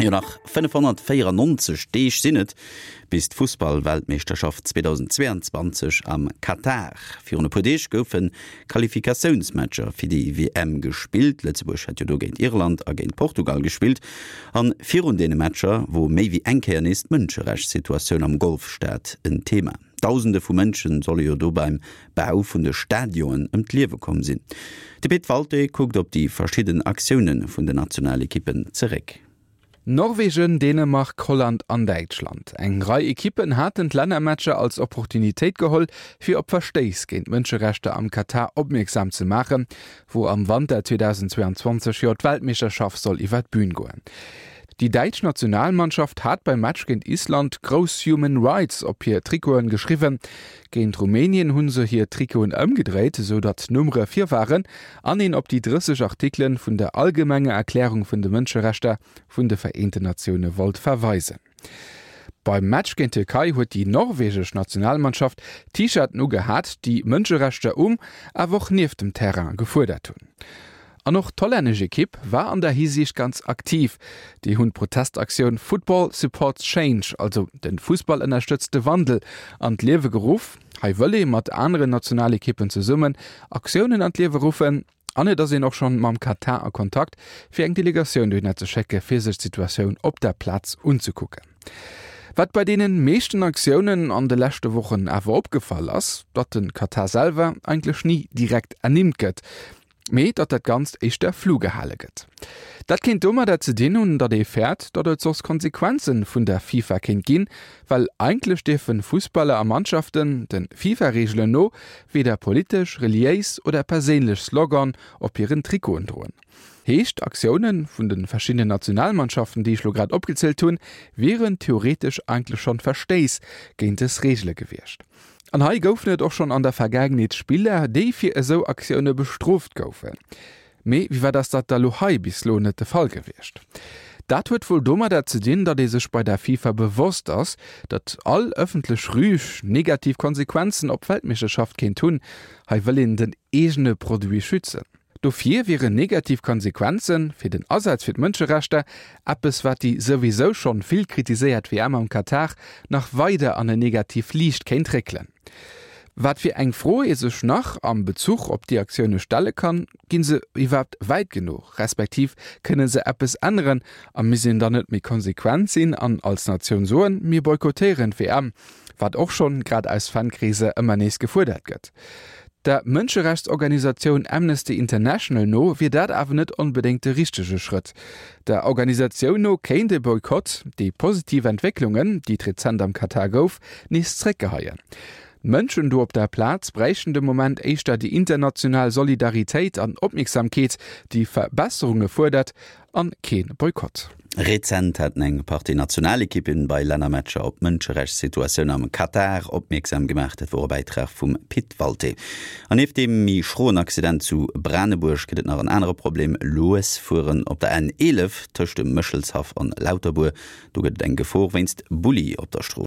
Jo, nach 594 Deeg sinn et bis d'Fussballweltmeeschterschaft 2022 am Katar. Virun e puer Deeg goufe Qualifikatiounsmatcher fir déi WM gespillt. Lëtzebuerg hat jo do géint Irland a géint Portugal gespillt. An virun deene Matcher wor méi wéi eng Kéier nees d'Mënscherechtssituatioun am Golfstaat en Thema. Dausende vu Mënsche solle jo do beim Bau vun de Stadionen ëm d'Liewe komm sinn. De Pit Walté kuckt op déi verschidden Aktioune vun den Nationalekippen zeréck. Norwegen, Dänemark, Holland an Däitschland. Eng Rei Ekippen haten d'Lännermatcher als Opportunitéit geholl, fir op Verstéiss géint d'Mënscherechter am Katar opmierksam ze maachen, wou am Wanter 2022 jo d'Weltmeeschterschaft soll iwwer d'Bün goen. Déi däitsch Nationalmannschaft hat beim Match géint Island grouss Human Rights op hir Trikoten geschriwwen. Géint Rumänien hu se hir Trikoten ëmgedréit, esou datt d'Nummere vir waren an een op déi 30 Artikelen vun der Allgemenger Erklärung vun de Mënscherechter vun de Vereenten Natioune wollt verweisen. Beim Match géint d'Tierkei huet déi norwegesch Nationalmannschaft T-Shirten ugehat, déi Mënscherechter um, awer och nieft dem Terrain gefuerdert hunn. An och d'hollännesch Ekipp war an der Hisiicht ganz aktiv. Déi hunn d'Protestaktioun Football Supports Change, also de Fussball ënnerstëtzt de Wandel, an d'Liewe geruff. Hei wëll ee mat aneren Nationalekippen zesummen Aktiounen an d'Liewe ruffen. An et ass een och schonn mam Katar a Kontakt, fir eng Delegatioun dohinner ze schécke fir sech d'Situatioun op der Plaz unzekucken. Wat bei deenen meeschten Aktiounen an de leschte Wochen awer opgefall ass, datt de Katar selwer eigentlech ni direkt ernimmt gëtt. Mee datt dat Ganzt éischter flou gehale gëtt. Dat kéint domadder ze dinn hunn, datt ee fäert, datt et soss Konsequenze vun der FIFA kéint ginn, well eigentlech dierfe Fussballer a Mannschaften, de FIFA-Reegelen no, weder politesch, reliéis oder perséinlech Slogan op hiren Trikoten droen. Heescht, Aktioune vun de verschiddenen Nationalmannschaften, déi ech lo grad opgezielt hunn, wieren theoretesch eigentlech schonn Verstéiss géint dës Reegele gewiescht. An hei goufen et och schonn an der Vergaangenheet Spiller, déi fir esou Aktioune bestrooft goufen. Mee wéi wat ass dat da lo hei bis lo net de Fall gewiescht? Dat huet wuel domadder ze dinn, datt ee sech bei der FIFA bewosst ass, datt all ëffentlech Rüg negativ Konsequenzen op d'Weltmeeschterschaft kéint hunn. Hei wëll een den eegene Produit schützen. Dofir wieren negativ Konsequenze fir den Asaz fir d'Mënscherechter eppes, wat déi souwisou schonn vill kritiséiert WM am Katar nach weider an en negativ Liicht kéint réckelen. Wat fir eng Fro ee sech nach am Bezuch op déi Aktioune stelle kann, Ginn se iwwerhaapt wäit genuch, respektiv kënne se eppes änneren a misst een dann net méi konsequent sinn an als Natioun soen, mir boykottéieren d'WM, wat och schonn, grad aus Fankreeser, ëmmer nees gefuerdert gëtt? Der Mënscherechtsorganisatioun Amnesty International no wier dat awer net onbedéngt de richtege Schrëtt. Der Organisatioun no kéint e Boykott déi positiv Entwécklungen, déi et rezent am Katar gouf, nees zréckgeheien. D'Mënschen do op der Plaz bräichten de Moment éischter déi international Solidaritéit an Opmierksamkeet, déi Verbesserunge fuerdert, an kee Boykott. Rezent haten eng Partie Nationalekippen bei Lännermatcher op d'Mënscherechtssituatioun am Katar opmierksam gemaach. Dat wor e Bäitrag vum Pit Walté. An nieft deem méi schroen Accident zu Branebuerg gëtt et nach en anere Problem, Lues fueren op der N 11 tëscht dem Méchelshaff an Lauterbuer. Do gëtt et eng Gefor wéinst Bulli op der Strooss.